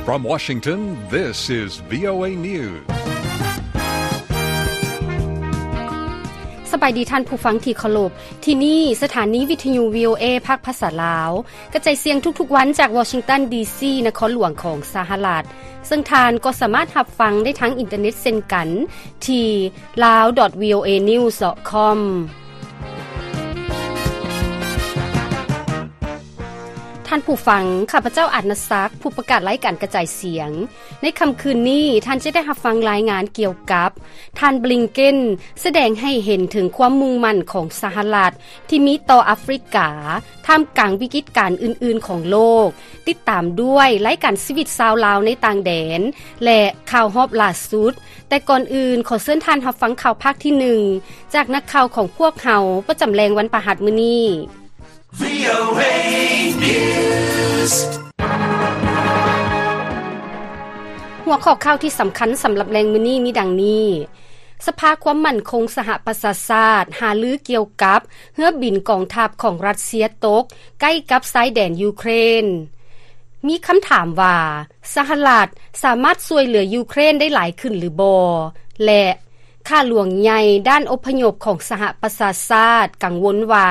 From Washington, this is VOA News. ສະບາຍດີທ່ານຜູ້ຟັງທີ່ເຄົາລົບ, ທີ່ນີ້ສະຖານີວິທຍຸ VOA ພາກພາສາລາວ ກະຈາຍສຽງທຸກໆວັນຈາກວໍຊິງຕັນ ດີຊີ ນະຄອນຫຼວງຂອງສະຫະລັດ, ເຊິ່ງທ່ານກໍສາມາດຮັບຟັງໄດ້ທາງອິນເຕີເນັດເຊັ່ນກັນ ທີ່ lawvoanews.com. ທ່ານຜູ້ຟັງ, ຂ້າພະເຈົ້າ ອານາສັກ, ຜູ້ປະກາດລາຍການກະຈາຍສຽງ. ໃນຄ່ຳຄືນນີ້, ທ່ານຈະໄດ້ຮັບຟັງລາຍງານກ່ຽວກັບ ທ່ານ ບລິງເກັນ ສະແດງໃຫ້ເຫັນເຖິງຄວາມມຸ່ງໝັ້ນຂອງສະຫະລັດ ທີ່ມີຕໍ່ອາຟຣິກາ ທ່າມກາງວິກິດການອື່ນໆຂອງໂລກ, ຕິດຕາມດ້ວຍລາຍການຊີວິດຊາວລາວໃນຕ່າງແດນ ແລະ ຂ່າວຮອບລ່າສຸດ. ແຕ່ກ່ອນອື່ນ, ຂໍເຊີນທ່ານຮັບຟັງຂ່າວພາກທີໜຶ່ງ ຈາກນັກຂ່າວຂອງພວກເຮົາ ປະຈຳແລງວັນພະຫັດມື້ນີ້. VOA News. ຫົວຂໍ້ຂ່າວທີ່ສຳຄັນສຳລັບແລງມື້ນີ້ມີດັ່ງນີ້. ສະພາຄວາມໝັ້ນຄົງສະຫະປະຊາຊາດຫາລືກ່ຽວກັບເຮືອບິນກອງທັບຂອງຣັດເຊຍຕົກໃກ້ກັບຊາຍແດນຢູເຄຣນ. ມີຄຳຖາມວ່າ ສະຫະລັດສາມາດຊ່ວຍເຫຼືອຢູເຄຣນໄດ້ຫຼາຍຂຶ້ນຫຼືບໍ່? ແລະ ຂ້າຫຼວງໃຫຍ່ດ້ານອົບພະຍົບຂອງສະຫະປະຊາຊາດກັງວົນວ່າ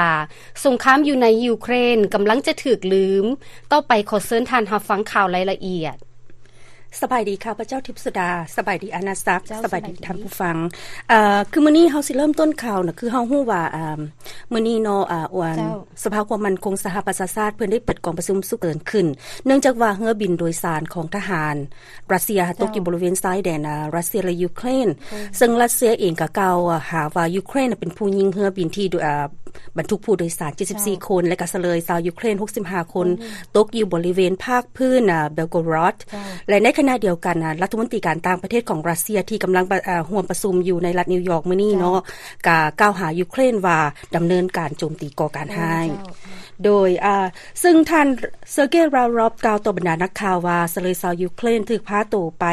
ສົງຄາມຢູ່ໃນຢູເຄຣນກຳລັງຈະຖືກລືມ. ຕໍ່ໄປຂໍເຊີນທ່ານຮັບຟັງຂ່າວລາຍລະອຽດ. ສະບາຍດີ ຂ້າພະເຈົ້າ ທິບສຸດາ, ສະບາຍດີ ອານາສັກ, ເຈົ້າ ສະບາຍດີ ສະບາຍດີ ທ່ານຜູ້ຟັງ. ເອີ ຄືມື້ນີ້ເຮົາຊິເລີ່ມຕົ້ນຂ່າວນະ ຄືເຮົາຮູ້ວ່າ ອາ ມື້ນີ້ເນາະ ອາ ອັນ ເຈົ້າ ສະພາຄວາມໝັ້ນຄົງສະຫະປະຊາຊາດເພິ່ນໄດ້ເປີດກອງປະຊຸມສຸກເສີນຂຶ້ນ ເນື່ອງຈາກວ່າເຮືອບິນໂດຍສານຂອງທະຫານຣັດເຊຍ ເຈົ້າ ຕົກຢູ່ບໍລິເວນຊາຍແດນ ອາ ຣັດເຊຍ ແລະ ຢູເຄຣນ. ໂອ້ ເຊິ່ງຣັດເຊຍເອງກໍກ່າວຫາວ່າ ຢູເຄຣນເປັນຜູ້ຍິງເຮືອບິນທີ່ ອາ ບັນທຸກຜູ້ໂດຍສານ ເຈັດສິບສີ່ ເຈົ້າ ຄົນ ແລະ ກໍສະເລີຍຊາວຢູເຄຣນ ຫົກສິບຫ້າ ຄົນ ໂອ້ ຕົກຢູ່ບໍລິເວນພາກພື້ນ ອາ ເບລໂກຣອດ ເຈົ້າ ແລະ ໃນຂະນະດຽວກັນ ອາ ລັດຖະມົນຕີການຕ່າງປະເທດຂອງຣັດເຊຍ ທີ່ກຳລັງປະ ອາ ຮ່ວມປະຊຸມຢູ່ໃນລັດນິວຢອກມື້ນີ້ເນາະ ເຈົ້າ ກໍກ່າວຫາຢູເຄຣນວ່າດຳເນີນການໂຈມຕີກໍ່ການຮ້າຍ. ເຈົ້າ ໂດຍ ອາ ເຊິ່ງທ່ານ ເຊີເກ ລາວຣອບ ກ່າວຕໍ່ບັນດານັກຂ່າວວ່າ ສະເລີຍຊາວຢູເຄຣນຖືກພາໂຕໄປ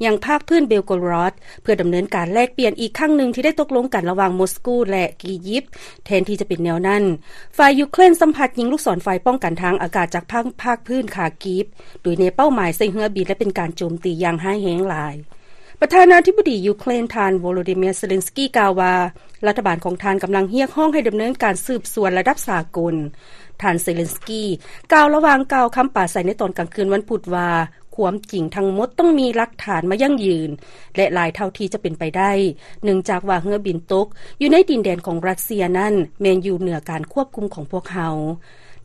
ຍັງພາກພື້ນເບລໂກຣອດ ເພື່ອດຳເນີນການແລກປ່ຽນອີກຄັ້ງໜຶ່ງທີ່ໄດ້ຕົກລົງກັນລະຫວ່າງມົສກູ ແລະ ອີຢິບ. ແທນທີ່ຈະເປັນແນວນັ້ນ, ຝ່າຍຢູເຄຣນຊ້ຳພັດຍິງລູກສອນໄຟປ້ອງກັນທາງອາກາດຈາກພາກ ພາກພື້ນຄາກີບ ໂດຍແນເປົ້າໝາຍໃສ່ເຮືອບິນ ແລະ ເປັນການໂຈມຕີຢ່າງຮ້າຍແຮງຫຼາຍ. ປະທານາທິບໍດີຢູເຄຣນ ທ່ານ ໂວໂລດີເມຍ ເຊເລັນສກີ ກ່າວວ່າ ລັດຖະບານຂອງທ່ານກຳລັງຮຽກຮ້ອງໃຫ້ດຳເນີນການສືບສວນລະດັບສາກົນ. ທ່ານ ເຊເລັນສກີ ກ່າວລະຫວ່າງກ່າວຄຳປາໄສໃນຕອນກາງຄືນວັນພຸດວ່າ ຄວາມຈິງທັງໝົດຕ້ອງມີຫຼັກຖານມາຢັ້ງຢືນ ແລະ ຫຼາຍເທົ່າທີ່ຈະເປັນໄປໄດ້ ເນື່ອງຈາກວ່າເຮືອບິນຕົກຢູ່ໃນດິນແດນຂອງຣັດເຊຍນັ້ນ ແມ່ນຢູ່ເໜືອການຄວບຄຸມຂອງພວກເຮົາ.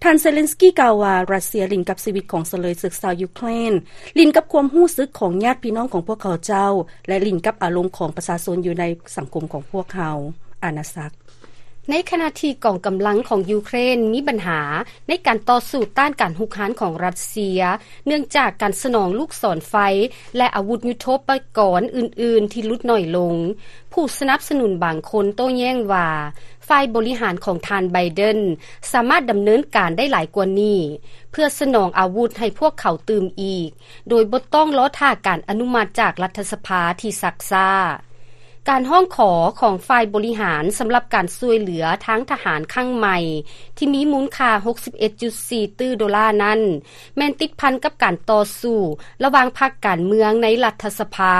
ທ່ານ ເຊເລັນສກີ ກ່າວວ່າ ຣັດເຊຍຫຼິ້ນກັບຊີວິດຂອງສະເລີຍເສິກຊາວຢູເຄຣນ, ຫຼິ້ນກັບຄວາມຮູ້ສຶກຂອງຍາດພີ່ນ້ອງຂອງພວກເຂົາເຈົ້າ ແລະ ຫຼິ້ນກັບອາລົມຂອງປະຊາຊົນຢູ່ໃນສັງຄົມຂອງພວກເຮົາ. ອານາສັກ. ໃນຂະນະທີ່ກອງກຳລັງຂອງຢູເຄຣນມີບັນຫາໃນການຕໍ່ສູ້ຕ້ານການຮຸກຮານຂອງຣັດເຊຍ ເນື່ອງຈາກການສະໜອງລູກສອນໄຟ ແລະ ອາວຸດຍຸດໂທປະກອນອື່ນໆທີ່ຫຼຸດໜ້ອຍລົງ, ຜູ້ສະໜັບສະໜູນບາງຄົນໂຕ້ແຍ້ງວ່າ ຝ່າຍບໍລິຫານຂອງທ່ານ ໄບເດັນ ສາມາດດຳເນີນການໄດ້ຫຼາຍກວ່ານີ້ ເພື່ອສະໜອງອາວຸດໃຫ້ພວກເຂົາຕື່ມອີກ ໂດຍບໍ່ຕ້ອງລໍຖ້າການອະນຸມັດຈາກລັດຖະສະພາທີ່ຊັກຊ້າ. ການຮ້ອງຂໍຂອງຝ່າຍບໍລິຫານສຳລັບການຊ່ວຍເຫຼືອທາງທະຫານຄັ້ງໃໝ່ ທີ່ມີມູນຄ່າ ຫົກສິບເອັດຈຸດສີ່ຕື້ໂດລານັ້ນ ແມ່ນຕິດພັນກັບການຕໍ່ສູ້ລະຫວ່າງພັກການເມືອງໃນລັດຖະສະພາ,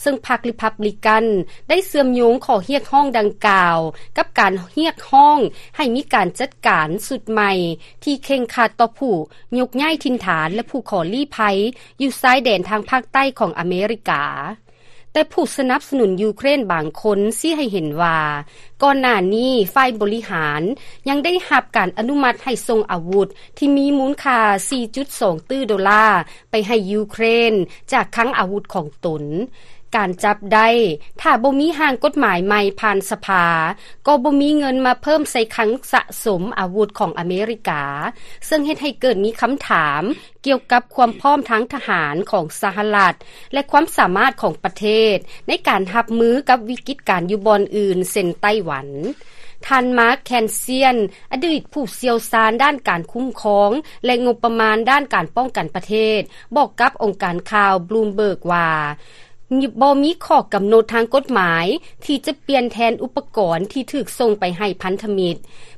ເຊິ່ງພັກຣີພັບບລິກັນໄດ້ເຊື່ອມໂຍງຂໍ້ຮຽກຮ້ອງດັ່ງກ່າວ ກັບການຮຽກຮ້ອງໃຫ້ມີການຈັດການຊຸດໃໝ່ ທີ່ເຄັ່ງຄັດຕໍ່ຜູ້ຍົກຍ້າຍຖິ່ນຖານ ແລະ ຜູ້ຂໍລີ້ໄພຢູ່ຊາຍແດນທາງພາກໃຕ້ຂອງອາເມລິກາ. ແຕ່ຜູ້ສະໜັບສະໜູນຢູເຄຣນບາງຄົນຊີ້ໃຫ້ເຫັນວ່າ ກ່ອນໜ້ານີ້ຝ່າຍບໍລິຫານຍັງໄດ້ຮັບການອະນຸມັດໃຫ້ສົ່ງອາວຸດທີ່ມີມູນຄ່າ ສີ່ຈຸດສອງຕື້ໂດລາ ໄປໃຫ້ຢູເຄຣນຈາກຄັງອາວຸດຂອງຕົນ. ການຈັບໄດ້ ຖ້າບໍ່ມີຮ່າງກົດໝາຍໃໝ່ຜ່ານສະພາ, ກໍບໍ່ມີເງິນມາເພີ່ມໃສ່ຄັງສະສົມອາວຸດຂອງອາເມລິກາ, ເຊິ່ງເຮັດໃຫ້ເກີດມີຄຳຖາມ ກ່ຽວກັບຄວາມພ້ອມທາງທະຫານຂອງສະຫະລັດ ແລະ ຄວາມສາມາດຂອງປະເທດໃນການຮັບມືກັບວິກິດການຢູ່ບ່ອນອື່ນ ເຊັ່ນ ໄຕ້ຫວັນ. ທ່ານ ມາກ ແຄນຊຽນ ອະດີດຜູ້ຊ່ຽວຊານດ້ານການຄຸ້ມຄອງ ແລະ ງົບປະມານດ້ານການປ້ອງກັນປະເທດ ບອກກັບອົງການຂ່າວບລູມເບີກວ່າ ບໍ່ມີຂໍ້ກຳນົດທາງກົດໝາຍທີ່ຈະປ່ຽນແທນອຸປະກອນທີ່ຖືກສົ່ງໄປໃຫ້ພັນທະມິດ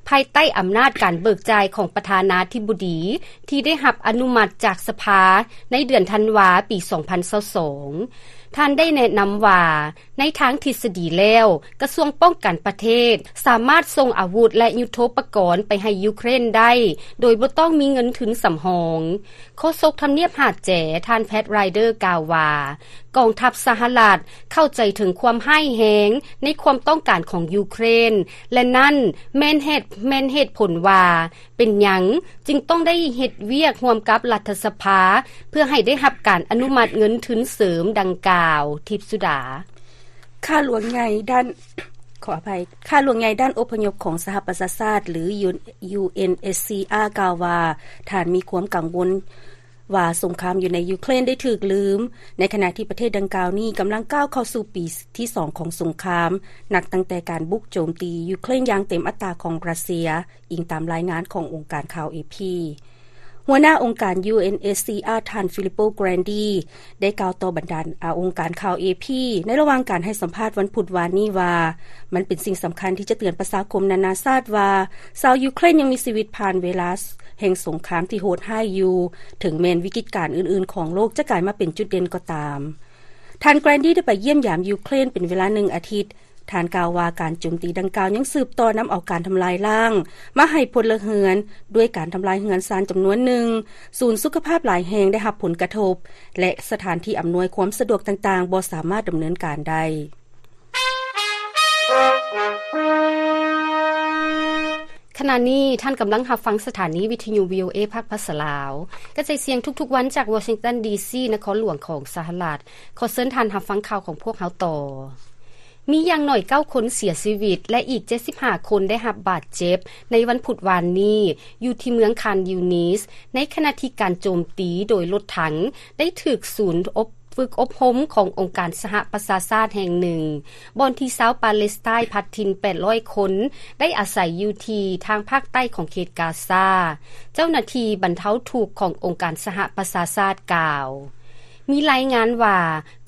ພາຍໃຕ້ອຳນາດການເບີກຈ່າຍຂອງປະທານາທິບໍດີ ທີ່ໄດ້ຮັບອະນຸມັດຈາກສະພາໃນເດືອນທັນວາປີສອງພັນຊາວສອງ. ທ່ານໄດ້ແນະນຳວ່າ ໃນທາງທິດສະດີແລ້ວ, ກະຊວງປ້ອງກັນປະເທດສາມາດສົ່ງອາວຸດ ແລະ ຍຸດໂທປະກອນໄປໃຫ້ຢູເຄຣນໄດ້ ໂດຍບໍ່ຕ້ອງມີເງິນທຶນສຳຮອງ. ໂຄສົກທຳນຽບຫາດແຈ ທ່ານ ແພັດ ຣາຍເດີ ກ່າວວ່າ ກອງທັບສະຫະລັດເຂົ້າໃຈເຖິງຄວາມຮ້າຍແຮງໃນຄວາມຕ້ອງການຂອງຢູເຄຣນ ແລະ ນັ້ນແມ່ນເຫດ, ແມ່ນເຫດຜົນວ່າ ເປັນຫຍັງຈຶ່ງຕ້ອງໄດ້ເຮັດວຽກຮ່ວມກັບລັດຖະສະພາ ເພື່ອໃຫ້ໄດ້ຮັບການອະນຸມັດເງິນທຶນເສີມດັ່ງກ່າວ. ທິບສຸດາ. ຂ້າຫຼວງໃຫຍ່ດ້ານ, ຂໍອະໄພ, ຂ້າຫຼວງໃຫຍ່ດ້ານອົບພະຍົບຂອງສະຫະປະຊາຊາດ ຫຼື ຢູເອັນເອັດຊີອາ ກ່າວວ່າ ທ່ານມີຄວາມກັງວົນວ່າສົງຄາມຢູ່ໃນຢູເຄຣນໄດ້ຖືກລືມ, ໃນຂະນະທີ່ປະເທດດັ່ງກ່າວນີ້ກຳລັງກ້າວເຂົ້າສູ່ປີທີສອງຂອງສົງຄາມ, ນັບຕັ້ງແຕ່ການບຸກໂຈມຕີຢູເຄຣນຢ່າງເຕັມອັດຕາຂອງຣັດເຊຍ. ອີງຕາມລາຍງານຂອງອົງການຂ່າວເອພີ. ຫົວໜ້າອົງການ UNHCR ທ່ານ Filippo Grandi ໄດ້ກ່າວຕໍ່ບັນດາ ອາ ອົງການຂ່າວເອພີ ໃນລະຫວ່າງການໃຫ້ສຳພາດວັນພຸດວານນີ້ວ່າ ມັນເປັນສິ່ງສຳຄັນທີ່ຈະເຕືອນປະຊາຄົມນານາຊາດວ່າ ຊາວຢູເຄຣນຍັງມີຊີວິດຜ່ານເວລາແຫ່ງສົງຄາມທີ່ໂຫດຮ້າຍຢູ່, ເຖິງແມ່ນວິກິດການອື່ນໆຂອງໂລກຈະກາຍມາເປັນຈຸດເດັ່ນກໍຕາມ. ທ່ານ Grandi ໄດ້ໄປຢ້ຽມຢາມຢູເຄຣນເປັນເວລາໜຶ່ງອາທິດ. ທ່ານກ່າວວ່າ ການໂຈມຕີດັ່ງກ່າວຍັງສືບຕໍ່ນຳເອົາການທຳລາຍລ້າງມາໃຫ້ພົນລະເຮືອນ, ດ້ວຍການທຳລາຍເຮືອນຊານຈຳນວນໜຶ່ງ, ສູນສຸຂະພາບຫຼາຍແຫ່ງໄດ້ຮັບຜົນກະທົບ ແລະ ສະຖານທີ່ອຳນວຍຄວາມສະດວກຕ່າງໆບໍ່ສາມາດດຳເນີນການໄດ້. ຂະນະນີ້ທ່ານກຳລັງຮັບຟັງສະຖານີວິທະຍຸ VOA ພາກພາສາລາວ ກະຈາຍສຽງທຸກໆວັນຈາກ Washington DC ນະຄອນຫຼວງຂອງສະຫະລັດ. ຂໍເຊີນທ່ານຮັບຟັງຂ່າວຂອງພວກເຮົາຕໍ່. ມີຢ່າງໜ້ອຍເກົ້າຄົນເສຍຊີວິດ ແລະ ອີກເຈັດສິບຫ້າຄົນໄດ້ຮັບບາດເຈັບໃນວັນພຸດວານນີ້ ຢູ່ທີ່ເມືອງຄານຢູນິສ ໃນຂະນະທີ່ການໂຈມຕີໂດຍລົດຖັງໄດ້ຖືກສູນອົບ ຝຶກອົບຮົມຂອງອົງການສະຫະປະຊາຊາດແຫ່ງໜຶ່ງ ບ່ອນທີ່ຊາວປາເລສໄຕນພັດຖິ່ນແປດຮ້ອຍຄົນໄດ້ອາໄສຢູ່ທີ່ທາງພາກໃຕ້ຂອງເຂດກາຊາ. ເຈົ້າໜ້າທີ່ບັນເທົາທຸກຂອງອົງການສະຫະປະຊາຊາດກ່າວ. ມີລາຍງານວ່າ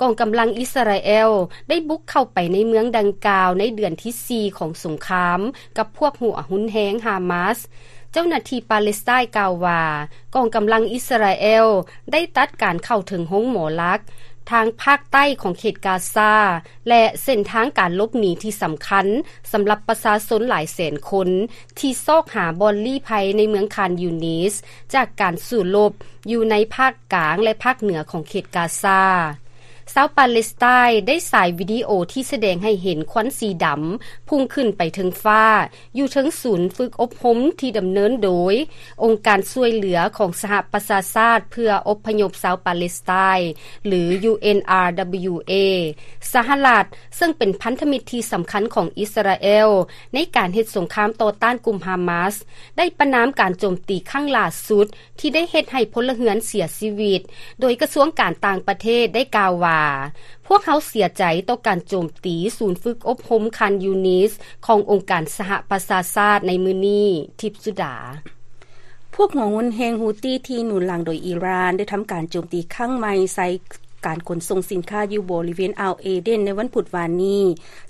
ກອງກຳລັງອິສຣາແອລໄດ້ບຸກເຂົ້າໄປໃນເມືອງດັ່ງກ່າວໃນເດືອນທີສີ່ຂອງສົງຄາມກັບພວກຫົວຮຸນແຮງຮາມາສ. ເຈົ້າໜ້າທີ່ປາເລສໄຕນກ່າວວ່າ ກອງກຳລັງອິສຣາແອລໄດ້ຕັດການເຂົ້າເຖິງໂຮງໝໍຫຼັກທາງພາກໃຕ້ຂອງເຂດກາຊາ ແລະ ເສັ້ນທາງການຫຼົບໜີທີ່ສຳຄັນສຳລັບປະຊາຊົນຫຼາຍແສນຄົນທີ່ຊອກຫາບ່ອນລີ້ໄພໃນເມືອງຄານຢູນິສ ຈາກການສູ້ລົບຢູ່ໃນພາກກາງ ແລະ ພາກເໜືອຂອງເຂດກາຊາ. ຊາວປາເລສໄຕນໄດ້ສາຍວິດີໂອທີ່ສະແດງໃຫ້ເຫັນຄວັນສີດຳພຸ່ງຂຶ້ນໄປເທິງຟ້າ ຢູ່ເທິງສູນຝຶກອົບຮົມທີ່ດຳເນີນໂດຍອົງການຊ່ວຍເຫຼືອຂອງສະຫະປະຊາຊາດເພື່ອອົບພະຍົບຊາວປາເລສໄຕນ ຫຼື UNRWA. ສະຫະລັດ ເຊິ່ງເປັນພັນທະມິດທີ່ສຳຄັນຂອງອິສຣາແອລໃນການເຮັດສົງຄາມຕໍ່ຕ້ານກຸ່ມຮາມາສ ໄດ້ປະນາມການໂຈມຕີຄັ້ງຫຼ້າສຸດ ທີ່ໄດ້ເຮັດໃຫ້ພົນລະເຮືອນເສຍຊີວິດ, ໂດຍກະຊວງການຕ່າງປະເທດໄດ້ກ່າວວ່າ ພວກເຮົາເສຍໃຈຕໍ່ການໂຈມຕີສູນຝຶກອົບຮົມຄານຢູນິສຂອງອົງການສະຫະປະຊາຊາດໃນມື້ນີ້. ທິບສຸດາ. ພວກຫົວຮຸນແຮງຮູ້ຕີທີ່ໜູນຫຼັງໂດຍອີຣານ ໄດ້ທຳການໂຈມຕີຄັ້ງໃໝ່ໃສ່ການຂົນສົ່ງສິນຄ້າຢູ່ບໍລິເວນອ່າວເອເດນໃນວັນພຸດວານນີ້,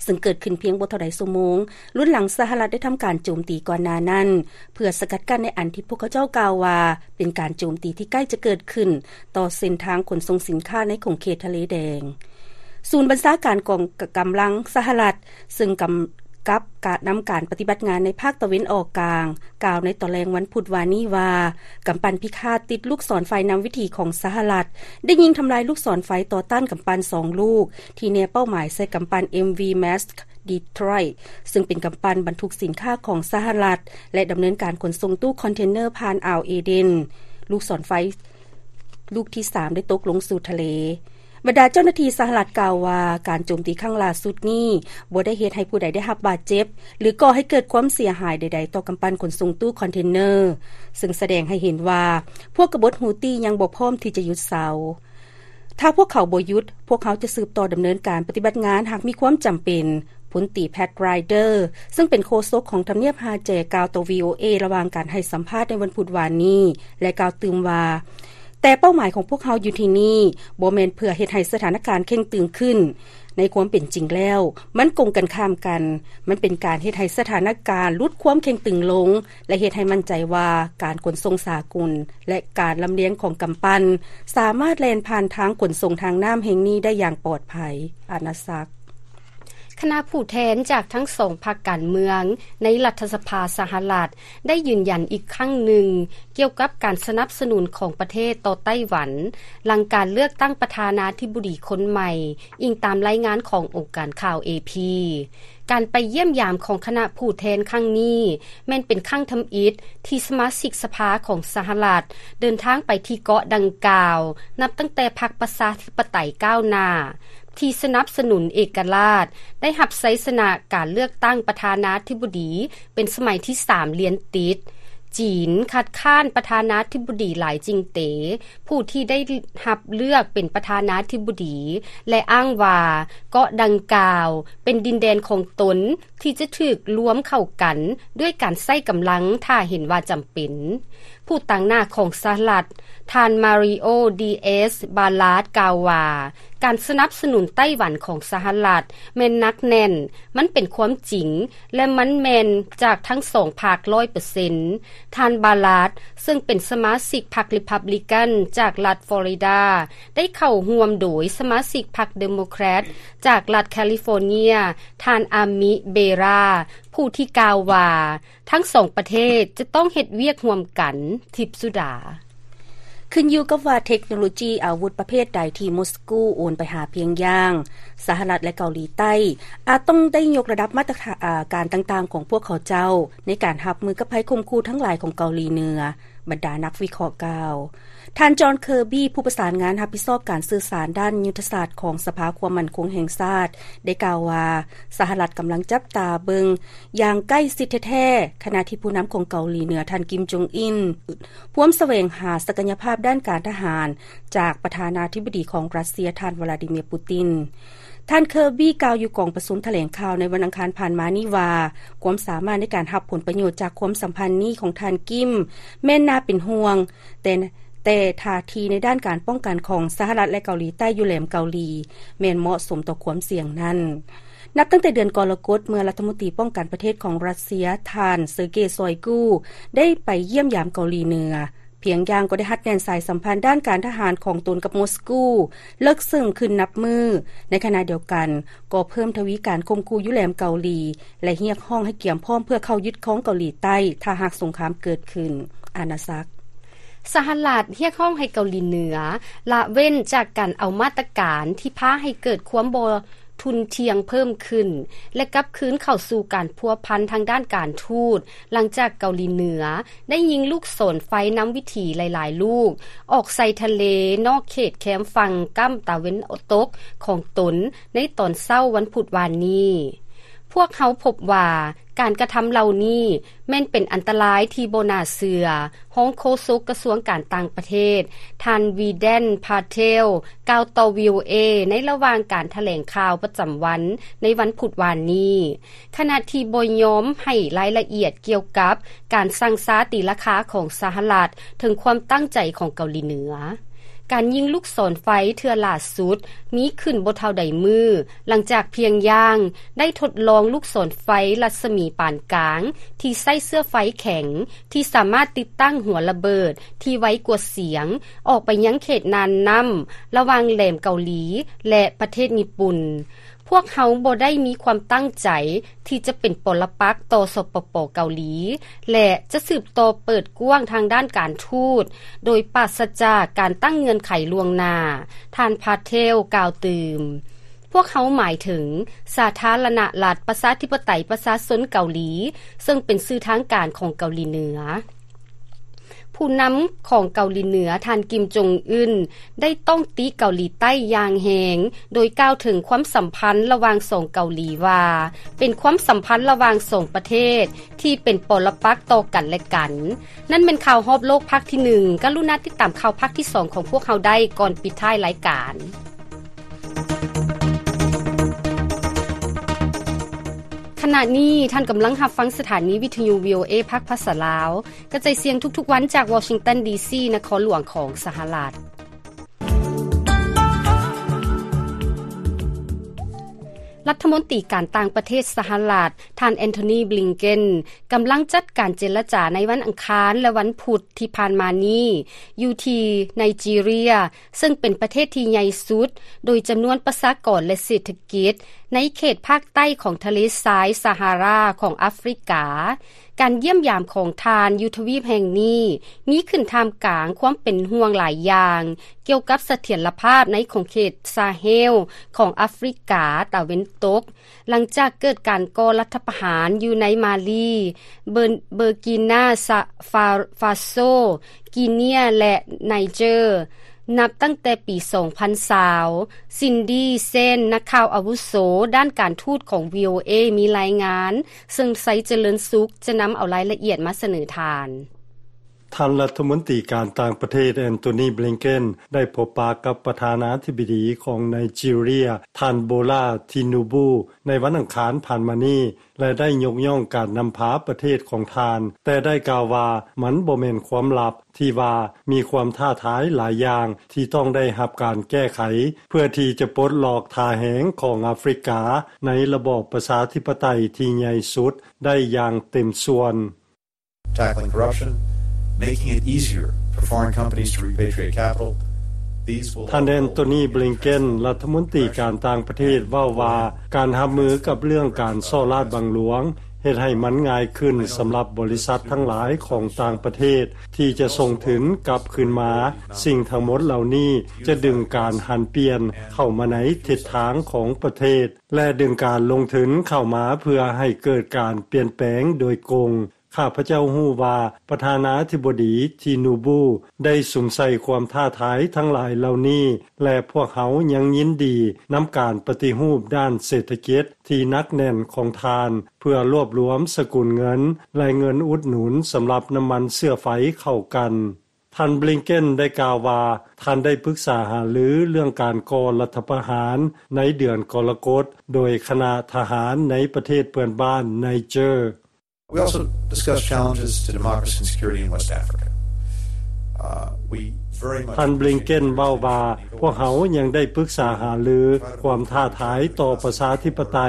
ເຊິ່ງເກີດຂຶ້ນພຽງບໍ່ເທົ່າໃດຊົ່ວໂມງ ລຸນຫຼັງສະຫະລັດໄດ້ທຳການໂຈມຕີກ່ອນໜ້ານັ້ນ ເພື່ອສະກັດກັ້ນໃນອັນທີ່ພວກເຂົາເຈົ້າກ່າວວ່າ ເປັນການໂຈມຕີທີ່ໃກ້ຈະເກີດຂຶ້ນຕໍ່ເສັ້ນທາງຂົນສົ່ງສິນຄ້າໃນຂົງເຂດທະເລແດງ. ສູນບັນຊາການກອງກຳລັງສະຫະລັດ ເຊິ່ງກຳກັບການນຳການປະຕິບັດງານໃນພາກຕາເວັນອອກກາງ ກ່າວໃນຕອນແລງວັນພຸດວານນີ້ວ່າ ກຳປັ່ນພິຄາດຕິດລູກສອນໄຟນຳວິຖີຂອງສະຫະລັດ ໄດ້ຍິງທຳລາຍລູກສອນໄຟຕໍ່ຕ້ານກຳປັ່ນສອງລູກ ທີ່ແນເປົ້າໝາຍໃສ່ກຳປັ່ນ MV Maersk Detroit ເຊິ່ງເປັນກຳປັ່ນບັນທຸກສິນຄ້າຂອງສະຫະລັດ ແລະ ດຳເນີນການຂົນສົ່ງຕູ້ຄອນເທນເນີຜ່ານອ່າວເອເດນ. ລູກສອນໄຟລູກທີສາມໄດ້ຕົກລົງສູ່ທະເລ. ບັນດາເຈົ້າໜ້າທີ່ສະຫະລັດກ່າວວ່າ ການໂຈມຕີຄັ້ງຫຼ້າສຸດນີ້ບໍ່ໄດ້ເຮັດໃຫ້ຜູ້ໃດໄດ້ຮັບບາດເຈັບ ຫຼື ກໍ່ໃຫ້ເກີດຄວາມເສຍຫາຍໃດໆຕໍ່ກຳປັ່ນຂົນສົ່ງຕູ້ຄອນເທນເນີ, ເຊິ່ງສະແດງໃຫ້ເຫັນວ່າ ພວກກະບົດຮູ້ຕີຍັງບໍ່ພ້ອມທີ່ຈະຢຸດເຊົາ. ຖ້າພວກເຂົາບໍ່ຢຸດ, ພວກເຮົາຈະສືບຕໍ່ດຳເນີນການປະຕິບັດງານຫາກມີຄວາມຈຳເປັນ, ພົນຕີ Pat Ryder ເຊິ່ງເປັນໂຄສົກຂອງທຳນຽບຮາແຈ ກ່າວຕໍ່ VOA ລະຫວ່າງການໃຫ້ສຳພາດໃນວັນພຸດວານນີ້ ແລະ ກ່າວຕື່ມວ່າ ແຕ່ເປົ້າໝາຍຂອງພວກເຮົາຢູ່ທີ່ນີ້ ບໍ່ແມ່ນເພື່ອເຮັດໃຫ້ສະຖານະການເຄັ່ງຕຶງຂຶ້ນ. ໃນຄວາມເປັນຈິງແລ້ວ, ມັນກົງກັນຂ້າມກັນ. ມັນເປັນການເຮັດໃຫ້ສະຖານະການຫຼຸດຄວາມເຄັ່ງຕຶງລົງ ແລະ ເຮັດໃຫ້ໝັ້ນໃຈວ່າການຂົນສົ່ງສາກົນ ແລະ ການລຳລຽງຂອງກຳປັ່ນ ສາມາດແລ່ນຜ່ານທາງຂົນສົ່ງທາງນ້ຳແຫ່ງນີ້ໄດ້ຢ່າງປອດໄພ. ອານາສັກ. ຄະນະຜູ້ແທນຈາກທັງສອງພັກການເມືອງໃນລັດຖະສະພາສະຫະລັດ ໄດ້ຢືນຢັນອີກຄັ້ງໜຶ່ງ ກ່ຽວກັບການສະໜັບສະໜູນຂອງປະເທດຕໍ່ໄຕ້ຫວັນ ຫຼັງການເລືອກຕັ້ງປະທານາທິບໍດີຄົນໃໝ່, ອີງຕາມລາຍງານຂອງອົງການຂ່າວ ເອພີ. ການໄປຢ້ຽມຢາມຂອງຄະນະຜູ້ແທນຄັ້ງນີ້ ແມ່ນເປັນຄັ້ງທຳອິດທີ່ສະມາຊິກສະພາຂອງສະຫະລັດ ເດີນທາງໄປທີ່ເກາະດັ່ງກ່າວ ນັບຕັ້ງແຕ່ພັກປະຊາທິປະໄຕກ້າວໜ້າ ທີ່ສະໜັບສະໜູນເອກະລາດ ໄດ້ຮັບໄຊຊະນະການເລືອກຕັ້ງປະທານາທິບໍດີເປັນສະໄໝທີສາມລຽນຕິດ. ຈີນຄັດຄ້ານປະທານາທິບໍດີຫຼາຍຈິງເຕ ຜູ້ທີ່ໄດ້ຮັບເລືອກເປັນປະທານາທິບໍດີ ແລະ ອ້າງວ່າເກາະດັ່ງກ່າວເປັນດິນແດນຂອງຕົນ ທີ່ຈະຖືກລວມເຂົ້າກັນດ້ວຍການໃຊ້ກຳລັງ ຖ້າເຫັນວ່າຈຳເປັນ. ຜູ້ຕາງໜ້າຂອງສະຫະລັດ ທ່ານ ມາຣິໂອ ດີເອສ ບາລາດ ກ່າວວ່າ ການສະໜັບສະໜູນໄຕ້ຫວັນຂອງສະຫະລັດແມ່ນໜັກແໜ້ນ, ມັນເປັນຄວາມຈິງ ແລະ ມັນແມ່ນຈາກທັງສອງພັກຮ້ອຍເປີເຊັນ. ທ່ານ ບາລາດ ເຊິ່ງເປັນສະມາຊິກພັກ Republican ຈາກລັດ Florida ໄດ້ເຂົ້າຮ່ວມໂດຍສະມາຊິກພັກ Democrat ຈາກລັດ California ທ່ານ ອາມິ ເບຣາ ຜູ້ທີ່ກ່າວວ່າ ທັງສອງປະເທດຈະຕ້ອງເຮັດວຽກຮ່ວມກັນ. ທິບສຸດາ. ຂຶ້ນຢູ່ກັບວ່າເທັກໂນໂລຈີອາວຸດປະເພດໃດທີ່ມົສກູໂອນໄປຫາພຽງຢາງ, ສະຫະລັດ ແລະ ເກົາຫຼີໃຕ້ ອາດຕ້ອງໄດ້ຍົກລະດັບມາດຕະຖານ ອາ ການຕ່າງໆຂອງພວກເຂົາເຈົ້າ ໃນການຮັບມືກັບໄພຂົ່ມຂູ່ທັງຫຼາຍຂອງເກົາຫຼີເໜືອ, ບັນດານັກວິເຄາະກ່າວ. ທ່ານ ຈອນ ເຄີບີ ຜູ້ປະສານງານຮັບຜິດຊອບການສື່ສານດ້ານຍຸດທະສາດຂອງສະພາຄວາມໝັ້ນຄົງແຫ່ງຊາດ ໄດ້ກ່າວວ່າ ສະຫະລັດກຳລັງຈັບຕາເບິ່ງຢ່າງໃກ້ຊິດແທ້ໆ ຂະນະທີ່ຜູ້ນຳຂອງເກົາຫຼີເໜືອ ທ່ານ ກິມ ຈົງອິນ ພວມສະແຫວງຫາສັກກະຍະພາບດ້ານການທະຫານຈາກປະທານາທິບໍດີຂອງຣັດເຊຍ ທ່ານ ວລາດີເມຍ ປູຕິນ. ທ່ານ ເຄີບີ ກ່າວຢູ່ກອງປະຊຸມຖະແຫຼງຂ່າວໃນວັນອັງຄານຜ່ານມານີ້ວ່າ ຄວາມສາມາດໃນການຮັບຜົນປະໂຫຍດຈາກຄວາມສຳພັນນີ້ຂອງທ່ານ ກິມ ແມ່ນໜ້າເປັນຫ່ວງ, ແຕ່ ແຕ່ທ່າທີໃນດ້ານການປ້ອງກັນຂອງສະຫະລັດ ແລະ ເກົາຫຼີໃຕ້ຢູ່ແຫຼມເກົາຫຼີ ແມ່ນເໝາະສົມຕໍ່ຄວາມສ່ຽງນັ້ນ. ນັບຕັ້ງແຕ່ເດືອນກໍລະກົດ ເມື່ອລັດຖະມົນຕີປ້ອງກັນປະເທດຂອງຣັດເຊຍ ທ່ານ ເຊີເກ ຊອຍກູ ໄດ້ໄປຢ້ຽມຢາມເກົາຫຼີເໜືອ, ພຽງຢ່າງກໍໄດ້ຮັດແໜ້ນສາຍສຳພັນດ້ານການທະຫານຂອງຕົນກັບມົສກູເລິກເຊິ່ງຂຶ້ນນັບມື້. ໃນຂະນະດຽວກັນ ກໍເພີ່ມທະວີການຂົ່ມຂູ່ຢູ່ແຫຼມເກົາຫຼີ ແລະ ຮຽກຮ້ອງໃຫ້ກຽມພ້ອມເພື່ອເຂົ້າຍຶດຄອງເກົາຫຼີໃຕ້ ຖ້າຫາກສົງຄາມເກີດຂຶ້ນ. ອານາສັກ. ສະຫະລັດຮຽກຮ້ອງໃຫ້ເກົາຫຼີເໜືອລະເວັ້ນຈາກການເອົາມາດຕະການທີ່ພາໃຫ້ເກີດຄວາມບໍ່ ທຸ່ນທ່ຽງເພີ່ມຂຶ້ນ ແລະ ກັບຄືນເຂົ້າສູ່ການພົວພັນທາງດ້ານການທູດ ຫຼັງຈາກເກົາຫຼີເໜືອໄດ້ຍິງລູກສອນໄຟນຳວິຖີຫຼາຍໆລູກ ອອກໃສ່ທະເລນອກເຂດແຄມຝັ່ງກ້ຳຕາເວັນຕົກຂອງຕົນໃນຕອນເຊົ້າວັນພຸດວານນີ້. ພວກເຮົາພົບວ່າ ການກະທຳເຫຼົ່ານີ້ແມ່ນເປັນອັນຕະລາຍທີ່ບໍ່ໜ້າເຊື່ອ, ຮອງໂຄສົກກະຊວງການຕ່າງປະເທດ ທ່ານ ວີແດນ ພາເທວ ກ່າວຕໍ່ ວີໂອເອ ໃນລະຫວ່າງການຖະແຫຼງຂ່າວປະຈຳວັນໃນວັນພຸດວານນີ້, ຂະນະທີ່ບໍ່ຍອມໃຫ້ລາຍລະອຽດກ່ຽວກັບການສັ່ງຊາຕີລາຄາຂອງສະຫະລັດເຖິງຄວາມຕັ້ງໃຈຂອງເກົາຫຼີເໜືອ. ການຍິງລູກສອນໄຟເທື່ອຫຼ້າສຸດມີຂຶ້ນບໍ່ເທົ່າໃດມື້ ຫຼັງຈາກພຽງຢ່າງໄດ້ທົດລອງລູກສອນໄຟລັດສະໝີປານກາງທີ່ໃຊ້ເຊື້ອໄຟແຂງ ທີ່ສາມາດຕິດຕັ້ງຫົວລະເບີດທີ່ໄວກວ່າສຽງອອກໄປຍັງເຂດນ່ານນ້ຳລະຫວ່າງແຫຼມເກົາຫຼີ ແລະ ປະເທດຍີ່ປຸ່ນ. ພວກເຮົາບໍ່ໄດ້ມີຄວາມຕັ້ງໃຈທີ່ຈະເປັນປໍລະປັກຕໍ່ ສປປ ເກົາຫຼີ ແລະ ຈະສືບຕໍ່ເປີດກວ້າງທາງດ້ານການທູດ ໂດຍປາສະຈາກການຕັ້ງເງື່ອນໄຂລ່ວງໜ້າ, ທ່ານ ພາເທວ ກ່າວຕື່ມ. ພວກເຮົາໝາຍເຖິງສາທາລະນະລັດປະຊາທິປະໄຕປະຊາຊົນເກົາຫຼີ, ເຊິ່ງເປັນຊື່ທາງການຂອງເກົາຫຼີເໜືອ. ຜູ້ນຳຂອງເກົາຫຼີເໜືອ ທ່ານ ກິມ ຈົງອຶນ ໄດ້ຕ້ອງຕິເກົາຫຼີໃຕ້ຢ່າງແຮງ, ໂດຍກ່າວເຖິງຄວາມສຳພັນລະຫວ່າງສອງເກົາຫຼີວ່າ ເປັນຄວາມສຳພັນລະຫວ່າງສອງປະເທດທີ່ເປັນປໍລະປັກຕໍ່ກັນແລະກັນ. ນັ້ນແມ່ນຂ່າວຮອບໂລກພາກທີໜຶ່ງ. ກະລຸນາຕິດຕາມຂ່າວພາກທີສອງຂອງພວກເຮົາໄດ້ກ່ອນປິດທ້າຍລາຍການ. ຂະນະນີ້ທ່ານກຳລັງຮັບຟັງສະຖານີວິທະຍຸ ວີໂອເອ ພາກພາສາລາວ ກະຈາຍສຽງທຸກໆວັນຈາກວໍຊິງຕັນ ດີຊີ ນະຄອນຫຼວງຂອງສະຫະລັດ. ລັດຖະມົນຕີການຕ່າງປະເທດສະຫະລັດ ທ່ານ ແອນໂທນີ ບລິງເກັນ ກຳລັງຈັດການເຈລະຈາໃນວັນອັງຄານ ແລະ ວັນພຸດທີ່ຜ່ານມານີ້ ຢູ່ທີ່ໄນຈີເຣຍ ເຊິ່ງເປັນປະເທດທີ່ໃຫຍ່ສຸດໂດຍຈຳນວນປະຊາກອນ ແລະ ເສດຖະກິດ ໃນເຂດພາກໃຕ້ຂອງທະເລຊາຍຊາຮາຣາຂອງອາຟຣິກາ. ການຢ້ຽມຢາມຂອງທ່ານຢູ່ທະວີບແຫ່ງນີ້ ມີຂຶ້ນທ່າມກາງຄວາມເປັນຫ່ວງຫຼາຍຢ່າງ ກ່ຽວກັບສະຖຽນລະພາບໃນຂົງເຂດຊາເຮລຂອງອາຟຣິກາຕາເວັນຕົກ, ຫຼັງຈາກເກີດການກໍ່ລັດຖະປະຫານຢູ່ໃນມາລີ, ເບີ ເບີກີນາ ຊາ ຟາ ຟາໂຊ, ກີເນຍ ແລະ ໄນເຈີ. ນັບຕັ້ງແຕ່ປີສອງພັນຊາວ, ຊິນດີ ເຊນ ນັກຂ່າວອາວຸໂສດ້ານການທູດຂອງ ວີໂອເອ ມີລາຍງານ, ເຊິ່ງ ໄຊຈະເລີນສຸກ ຈະນຳເອົາລາຍລະອຽດມາສະເໜີທ່ານ. ທ່ານລັດຖະມົນຕີການຕ່າງປະເທດ ແອນໂທນີ ບລິງເກັນ ໄດ້ພົບປະກັບປະທານາທິບໍດີຂອງໄນຈີເຣຍ ທ່ານ ໂບລາ ທິນູບູ ໃນວັນອັງຄານຜ່ານມານີ້ ແລະ ໄດ້ຍົກຍ້ອງການນຳພາປະເທດຂອງທ່ານ, ແຕ່ໄດ້ກ່າວວ່າມັນບໍ່ແມ່ນຄວາມລັບທີ່ວ່າມີຄວາມທ້າທາຍຫຼາຍຢ່າງທີ່ຕ້ອງໄດ້ຮັບການແກ້ໄຂ ເພື່ອທີ່ຈະປົດລອກທ່າແຮງຂອງອາຟຣິກາໃນລະບອບປະຊາທິປະໄຕທີ່ໃຫຍ່ສຸດໄດ້ຢ່າງເຕັມສ່ວນ. Tackling corruption, making it easier for foreign companies to repatriate capital. These will ທ່ານ ແອນໂທນີ ບລິງເກັນ ລັດຖະມົນຕີການຕ່າງປະເທດ ເວົ້າວ່າ ການຮັບມືກັບເລື່ອງການສໍ້ລາດບັງຫຼວງ ເຮັດໃຫ້ມັນງ່າຍຂຶ້ນສຳລັບບໍລິສັດທັງຫຼາຍຂອງຕ່າງປະເທດ ທີ່ຈະສົ່ງທຶນກັບຄືນມາ. ສິ່ງທັງໝົດເຫຼົ່ານີ້ຈະດຶງການຫັນປ່ຽນເຂົ້າມາໃນທິດທາງຂອງປະເທດ ແລະ ດຶງການລົງທຶນເຂົ້າມາເພື່ອໃຫ້ເກີດການປ່ຽນແປງໂດຍກົງ. ຂ້າພະເຈົ້າຮູ້ວ່າປະທານາທິບໍດີ ທີນູບູ ໄດ້ສຸມໃສ່ຄວາມທ້າທາຍທັງຫຼາຍເຫຼົ່ານີ້ ແລະ ພວກເຮົາຍັງຍິນດີນຳການປະຕິຮູບດ້ານເສດຖະກິດທີ່ໜັກແໜ້ນຂອງທ່ານ ເພື່ອລວບລວມສະກຸນເງິນ ແລະ ເງິນອຸດໜູນສຳລັບນ້ຳມັນເຊື້ອໄຟເຂົ້າກັນ. ທ່ານ ບລິງເກັນ ໄດ້ກ່າວວ່າ ທ່ານໄດ້ປຶກສາຫາລືເລື່ອງການກໍ່ລັດຖະປະຫານໃນເດືອນກໍລະກົດ ໂດຍຄະນະທະຫານໃນປະເທດເພື່ອນບ້ານໄນເຈີ. We also discussed challenges to democracy and security in West Africa. Uh, we very much ທ່ານ ບລິງເກັນ ເວົ້າວ່າ ພວກເຮົາຍັງໄດ້ປຶກສາຫາລືຄວາມທ້າທາຍຕໍ່ປະຊາທິປະໄຕ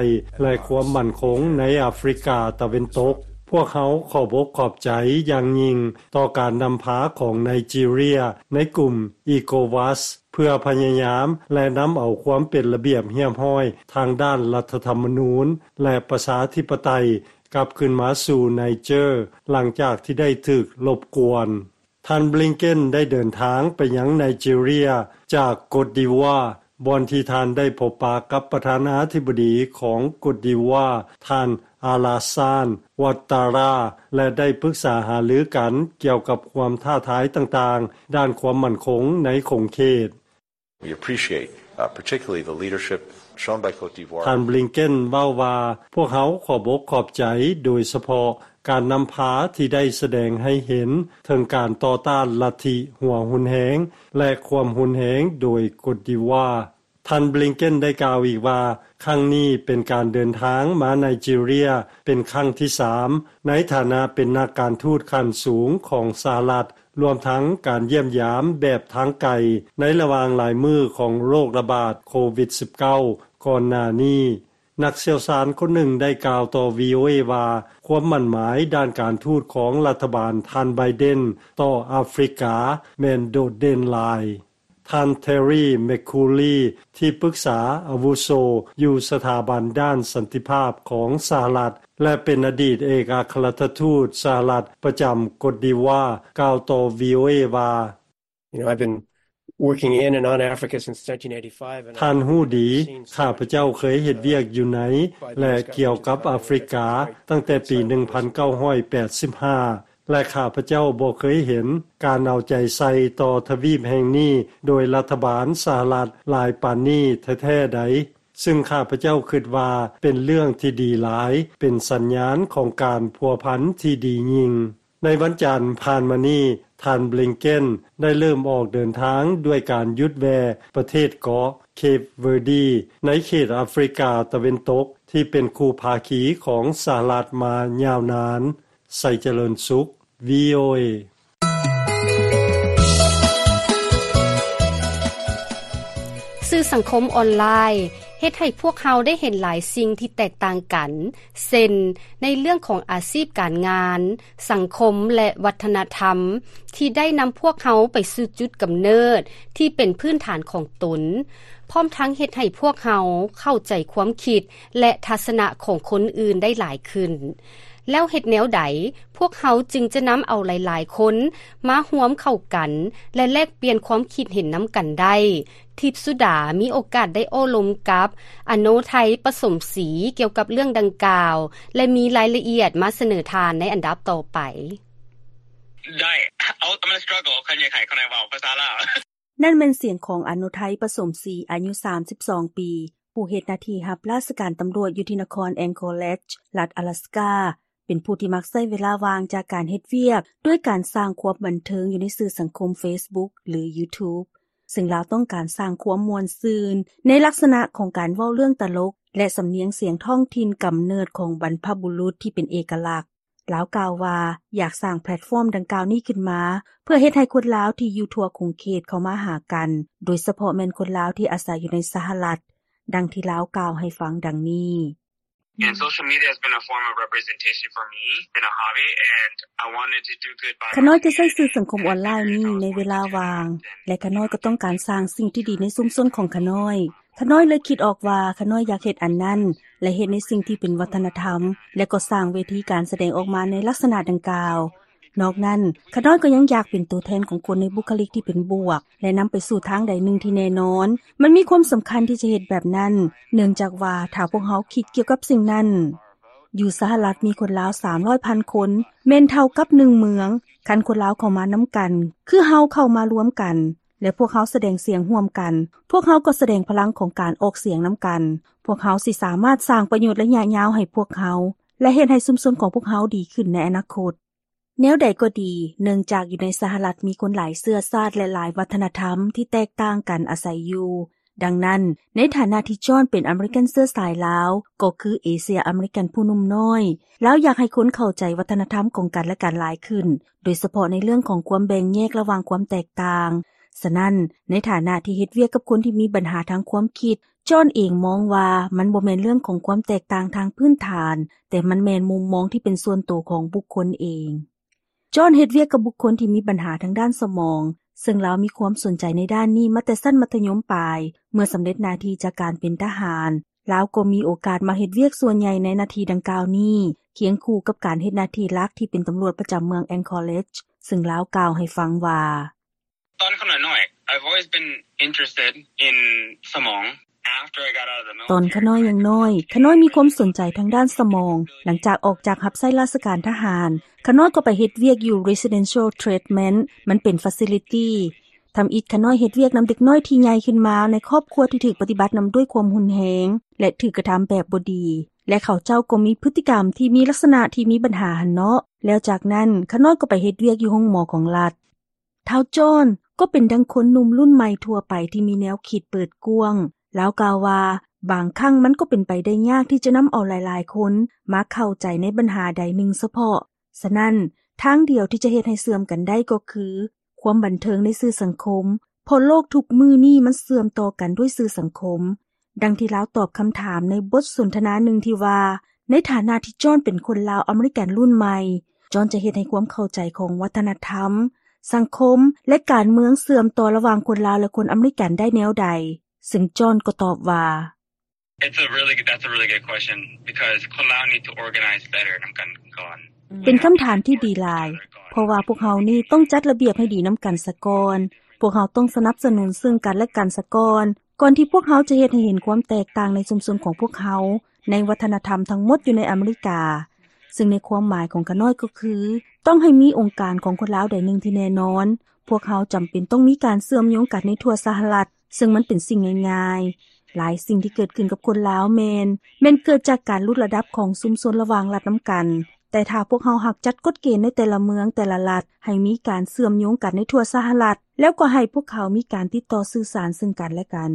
ແລະ ຄວາມໝັ້ນຄົງໃນອາຟຣິກາຕາເວັນຕົກ. ພວກເຮົາຂອບອົກຂອບໃຈຢ່າງຍິ່ງຕໍ່ການນຳພາຂອງໄນຈີເຣຍໃນກຸ່ມ ECOWAS ເພື່ອພະຍາຍາມ ແລະ ນຳເອົາຄວາມເປັນລະບຽບຮຽບຮ້ອຍທາງດ້ານລັດຖະທຳມະນູນ ແລະ ປະຊາທິປະໄຕ ກັບຄືນມາສູ່ໄນເຈີ ຫຼັງຈາກທີ່ໄດ້ຖືກລົບກວນ. ທ່ານ ບລິງເກັນ ໄດ້ເດີນທາງໄປຍັງໄນຈີເຣຍຈາກກົດດີວາ ບ່ອນທີ່ທ່ານໄດ້ພົບປະກັບປະທານາທິບໍດີຂອງກົດດີວາ ທ່ານ ອາລາຊານ ວັດຕາຣາ ແລະ ໄດ້ປຶກສາຫາລືກັນກ່ຽວກັບຄວາມທ້າທາຍຕ່າງໆ ດ້ານຄວາມໝັ້ນຄົງໃນຂົງເຂດ. We appreciate, uh, particularly the leadership shown by Côte d'Ivoire. ທ່ານ ບລິງເກັນ ເວົ້າວ່າ ພວກເຮົາຂອບອົກຂອບໃຈ ໂດຍສະເພາະການນຳພາທີ່ໄດ້ສະແດງໃຫ້ເຫັນເຖິງການຕໍ່ຕ້ານລັດທິຫົວຮຸນແຮງ ແລະ ຄວາມຮຸນແຮງໂດຍກົດດີວາ. ທ່ານ ບລິງເກັນ ໄດ້ກ່າວອີກວ່າ ຄັ້ງນີ້ເປັນການເດີນທາງມາໄນຈີເຣຍເປັນຄັ້ງທີສາມ ໃນຖານະເປັນນັກການທູດຂັ້ນສູງຂອງສະຫະລັດ ລວມທັງການຢ້ຽມຢາມແບບທາງໄກ ໃນລະຫວ່າງຫຼາຍມື້ຂອງໂລກລະບາດໂຄວິດສິບເກົ້າ ກ່ອນໜ້ານີ້. ນັກຊ່ຽວຊານຄົນໜຶ່ງໄດ້ກ່າວຕໍ່ ວີໂອເອ ວ່າ ຄວາມໝັ້ນໝາຍດ້ານການທູດຂອງລັດຖະບານທ່ານໄບເດັນຕໍ່ອາຟຣິກາແມ່ນໂດດເດັ່ນຫຼາຍ. ທ່ານ ເທຣີ ແມັກຄູລີ ທີ່ປຶກສາອາວຸໂສຢູ່ສະຖາບັນດ້ານສັນຕິພາບຂອງສະຫະລັດ ແລະ ເປັນອະດີດເອກອັກຄະລັດຖະທູດສະຫະລັດປະຈຳກົດດີວາ ກ່າວຕໍ່ ວີໂອເອ ວ່າ You know, I've been working in and on Africa since nineteen eighty-five, and ທ່ານຮູ້ດີ I've seen so ຂ້າພະເຈົ້າເຄີຍເຮັດວຽກຢູ່ໃນ ແລະ ກ່ຽວກັບອາຟຣິກາຕັ້ງແຕ່ປີໜຶ່ງພັນເກົ້າຮ້ອຍແປດສິບຫ້າ ແລະ ຂ້າພະເຈົ້າບໍ່ເຄີຍເຫັນການເອົາໃຈໃສ່ຕໍ່ທະວີບແຫ່ງນີ້ໂດຍລັດຖະບານສະຫະລັດຫຼາຍປານນີ້ແທ້ໆໃດ, ຊຶ່ງຂ້າພະເຈົ້າຄິດວ່າເປັນເລື່ອງທີ່ດີຫຼາຍ, ເປັນສັນຍານຂອງການພົວພັນທີ່ດີຍິ່ງ. ໃນວັນຈັນຜ່ານມານີ້, ທ່ານ ບລິງເກັນ ໄດ້ເລີ່ມອອກເດີນທາງດ້ວຍການຢຸດແວ່ປະເທດເກາະ ເຄບເວີດີ ໃນເຂດອາຟຣິກາຕາເວັນຕົກ ທີ່ເປັນຄູ່ພາຄີຂອງສະຫະລັດມາຍາວນານ. ໄຊຈະເລີນສຸກ ວີໂອເອ. ສື່ສັງຄົມອອນລາຍເຮັດໃຫ້ພວກເຮົາໄດ້ເຫັນຫຼາຍສິ່ງທີ່ແຕກຕ່າງກັນ, ເຊັ່ນ ໃນເລື່ອງຂອງອາຊີບການງານ, ສັງຄົມ ແລະ ວັດທະນະທຳ ທີ່ໄດ້ນຳພວກເຮົາໄປສູ່ຈຸດກຳເນີດທີ່ເປັນພື້ນຖານຂອງຕົນ, ພ້ອມທັງເຮັດໃຫ້ພວກເຮົາເຂົ້າໃຈຄວາມຄິດ ແລະ ທັດສະນະຂອງຄົນອື່ນໄດ້ຫຼາຍຂຶ້ນ. ແລ້ວເຮັດແນວໃດ ພວກເຮົາຈຶ່ງຈະນຳເອົາຫຼາຍໆຄົນມາຮ່ວມເຂົ້າກັນ ແລະ ແລກປ່ຽນຄວາມຄິດເຫັນນຳກັນໄດ້? ທິບສຸດາມີໂອກາດໄດ້ໂອ້ລົມກັບ ອະໂນໄທ ປະສົມສີ ກ່ຽວກັບເລື່ອງດັ່ງກ່າວ ແລະ ມີລາຍລະອຽດມາສະເໜີທ່ານໃນອັນດັບຕໍ່ໄປ. Dai, I'm gonna struggle. ຄັນຢາກໃຫ້ເຂົາໄດ້ເວົ້າພາສາລາວ. ນັ້ນແມ່ນສຽງຂອງ ອະໂນໄທ ປະສົມສີ ອາຍຸສາມສິບສອງປີ, ຜູ້ເຮັດໜ້າທີ່ຮັບລາຊະການຕຳຫຼວດຢູ່ທີ່ນະຄອນ Anchorage ລັດອາລັສກາ, ເປັນຜູ້ທີ່ມັກໃຊ້ເວລາວ່າງຈາກການເຮັດວຽກ ດ້ວຍການສ້າງຄວາມບັນເທີງຢູ່ໃນສື່ສັງຄົມ Facebook ຫຼື YouTube, ເຊິ່ງລາວຕ້ອງການສ້າງຄວາມມ່ວນຊື່ນ ໃນລັກສະນະຂອງການເວົ້າເລື່ອງຕະຫຼົກ ແລະ ສຳນຽງສຽງທ້ອງຖິ່ນກຳເນີດຂອງບັນພະບຸລຸດທີ່ເປັນເອກະລັກ. ລາວກ່າວວ່າ ຢາກສ້າງແພລດຟອມດັ່ງກ່າວນີ້ຂຶ້ນມາ ເພື່ອເຮັດໃຫ້ຄົນລາວທີ່ຢູ່ທົ່ວຂົງເຂດເຂົ້າມາຫາກັນ, ໂດຍສະເພາະແມ່ນຄົນລາວທີ່ອາໄສຢູ່ໃນສະຫະລັດ, ດັ່ງທີ່ລາວກ່າວໃຫ້ຟັງດັ່ງນີ້. And social media has been a form of representation for me. It's been a hobby, and I wanted to do good by ຂ້ານ້ອຍຈະໃຊ້ສື່ສັງຄົມອອນລາຍນີ້ໃນເວລາວ່າງ ແລະ ຂ້ານ້ອຍກໍຕ້ອງການສ້າງສິ່ງທີ່ດີໃນຊຸມຊົນຂອງຂ້ານ້ອຍ. ຂ້ານ້ອຍເລີຍຄິດອອກວ່າ ຂ້ານ້ອຍຢາກເຮັດອັນນັ້ນ ແລະ ເຮັດໃນສິ່ງທີ່ເປັນວັດທະນະທຳ ແລະ ກໍສ້າງເວທີການສະແດງອອກມາໃນລັກສະນະດັ່ງກ່າວ. ນອກນັ້ນ, ຂ້ານ້ອຍກໍຍັງຢາກເປັນຕົວແທນຂອງຄົນໃນບຸກຄະລິກທີ່ເປັນບວກ ແລະ ນຳໄປສູ່ທາງໃດໜຶ່ງທີ່ແນ່ນອນ. ມັນມີຄວາມສຳຄັນທີ່ຈະເຮັດແບບນັ້ນ, ເນື່ອງຈາກວ່າຖ້າພວກເຮົາຄິດກ່ຽວກັບສິ່ງນັ້ນ, ຢູ່ສະຫະລັດມີຄົນລາວສາມຮ້ອຍພັນຄົນ, ແມ່ນເທົ່າກັບໜຶ່ງເມືອງ. ຄັນຄົນລາວເຂົ້າມານຳກັນ, ຄືເຮົາເຂົ້າມາລວມກັນ, ແລະ ພວກເຮົາສະແດງສຽງຮ່ວມກັນ, ພວກເຮົາກໍສະແດງພະລັງຂອງການອອກສຽງນຳກັນ. ພວກເຮົາຊິສາມາດສ້າງປະໂຫຍດໄລຍະຍາວໃຫ້ພວກເຮົາ ແລະ ເຮັດໃຫ້ຊຸມຊົນຂອງພວກເຮົາດີຂຶ້ນໃນອະນາຄົດ. ແນວໃດກໍດີ, ເນື່ອງຈາກຢູ່ໃນສະຫະລັດມີຄົນຫຼາຍເຊື້ອຊາດ ແລະ ຫຼາຍວັດທະນະທຳທີ່ແຕກຕ່າງກັນອາໄສຢູ່. ດັ່ງນັ້ນ, ໃນຖານະທີ່ຈອນເປັນອາເມລິກັນເຊື້ອສາຍລາວ, ກໍຄືເອເຊຍອາເມລິກັນຜູ້ໜຸ່ມນ້ອຍ, ລາວຢາກໃຫ້ຄົນເຂົ້າໃຈວັດທະນະທຳຂອງກັນແລະກັນຫຼາຍຂຶ້ນ, ໂດຍສະເພາະໃນເລື່ອງຂອງຄວາມແບ່ງແຍກລະຫວ່າງຄວາມແຕກຕ່າງ. ສະນັ້ນ, ໃນຖານະທີ່ເຮັດວຽກກັບຄົນທີ່ມີບັນຫາທາງຄວາມຄິດ, ຈອນເອງມອງວ່າມັນບໍ່ແມ່ນເລື່ອງຂອງຄວາມແຕກຕ່າງທາງພື້ນຖານ, ແຕ່ມັນແມ່ນມຸມມອງທີ່ເປັນສ່ວນໂຕຂອງບຸກຄົນເອງ. ຈອນເຮັດວຽກກັບບຸກຄົນທີ່ມີບັນຫາທາງດ້ານສະໝອງ, ເຊິ່ງລາວມີຄວາມສົນໃຈໃນດ້ານນີ້ມາແຕ່ຊັ້ນມັດທະຍົມປາຍ. ເມື່ອສຳເລັດໜ້າທີ່ຈາກການເປັນທະຫານ, ລາວກໍມີໂອກາດມາເຮັດວຽກສ່ວນໃຫຍ່ໃນໜ້າທີ່ດັ່ງກ່າວນີ້, ຄຽງຄູ່ກັບການເຮັດໜ້າທີ່ຫຼັກທີ່ເປັນຕຳຫຼວດປະຈຳເມືອງ Anchorage, ເຊິ່ງລາວກ່າວໃຫ້ຟັງວ່າ ຕອນຂ້ານ້ອຍ I've always been interested in ສະໝອງ. After I got out of the military, ຕອນຂ້ານ້ອຍຍັງນ້ອຍ, ຂ້ານ້ອຍມີຄວາມສົນໃຈທາງດ້ານສະໝອງ. ຫຼັງຈາກອອກຈາກຮັບໃຊ້ລາຊະການທະຫານ, ຂ້ານ້ອຍກໍໄປເຮັດວຽກຢູ່ Residential Treatment, ມັນເປັນ facility. ທຳອິດຂ້ານ້ອຍເຮັດວຽກນຳເດັກນ້ອຍທີ່ໃຫຍ່ຂຶ້ນມາໃນຄອບຄົວທີ່ຖືກປະຕິບັດນຳດ້ວຍຄວາມຮຸນແຮງ ແລະ ຖືກກະທຳແບບບໍ່ດີ, ແລະ ເຂົາເຈົ້າກໍມີພຶດຕິກຳທີ່ມີລັກສະນະທີ່ມີບັນຫາຫັ້ນເນາະ. ແລ້ວຈາກນັ້ນ, ຂ້ານ້ອຍກໍໄປເຮັດວຽກຢູ່ໂຮງໝໍຂອງລັດ. ທ້າວຈອນກໍເປັນດັ່ງຄົນໜຸ່ມລຸ້ນໃໝ່ທົ່ວໄປທີ່ມີແນວຄິດເປີດກວ້າງ. ລາວກ່າວວ່າ, ບາງຄັ້ງມັນກໍເປັນໄປໄດ້ຍາກທີ່ຈະນຳເອົາຫຼາຍໆຄົນມາເຂົ້າໃຈໃນບັນຫາໃດໜຶ່ງສະເພາະ. ສະນັ້ນ, ທາງດຽວທີ່ຈະເຮັດໃຫ້ເຊື່ອມກັນໄດ້ກໍຄືຄວາມບັນເທີງໃນສື່ສັງຄົມ, ເພາະໂລກທຸກມື້ນີ້ມັນເຊື່ອມຕໍ່ກັນດ້ວຍສື່ສັງຄົມ. ດັ່ງທີ່ລາວຕອບຄຳຖາມໃນບົດສົນທະນາໜຶ່ງທີ່ວ່າ, ໃນຖານະທີ່ຈອນເປັນຄົນລາວອາເມລິກັນລຸ້ນໃໝ່, ຈອນຈະເຮັດໃຫ້ຄວາມເຂົ້າໃຈຂອງວັດທະນະທຳ, ສັງຄົມ ແລະ ການເມືອງເຊື່ອມຕໍ່ລະຫວ່າງຄົນລາວ ແລະ ຄົນອາເມລິກັນໄດ້ແນວໃດ? ເຊິ່ງຈອນກໍຕອບວ່າ It's a really good, that's a really good question, because ຄົນລາວ need to organize better ນຳກັນກ່ອນ. ເປັນຄຳຖາມທີ່ດີຫຼາຍ, ເພາະວ່າພວກເຮົານີ້ຕ້ອງຈັດລະບຽບໃຫ້ດີນຳກັນສາກ່ອນ. ພວກເຮົາຕ້ອງສະໜັບສະໜູນເຊິ່ງກັນແລະກັນສາກ່ອນ, ກ່ອນທີ່ພວກເຮົາຈະເຮັດໃຫ້ເຫັນຄວາມແຕກຕ່າງໃນຊຸມຊົນຂອງພວກເຮົາ, ໃນວັດທະນະທຳທັງໝົດຢູ່ໃນອາເມລິກາ. ເຊິ່ງໃນຄວາມໝາຍຂອງຂ້ານ້ອຍກໍຄື, ຕ້ອງໃຫ້ມີອົງການຂອງຄົນລາວໃດໜຶ່ງທີ່ແນ່ນອນ. ພວກເຮົາຈຳເປັນຕ້ອງມີການເຊື່ອມໂຍງກັນໃນທົ່ວສະຫະລັດ, ເຊິ່ງມັນເປັນສິ່ງງ່າຍໆ. ຫຼາຍສິ່ງທີ່ເກີດຂຶ້ນກັບຄົນລາວແມ່ນ, ແມ່ນເກີດຈາກການຫຼຸດລະດັບຂອງຊຸມຊົນລະຫວ່າງລັດນຳກັນ. ແຕ່ຖ້າພວກເຮົາຫາກຈັດກົດເກນໃນແຕ່ລະເມືອງ, ແຕ່ລະລັດ, ໃຫ້ມີການເຊື່ອມໂຍງກັນໃນທົ່ວສະຫະລັດ, ແລ້ວກໍໃຫ້ພວກເຂົາມີການຕິດຕໍ່ສື່ສານເຊິ່ງກັນແລະກັນ.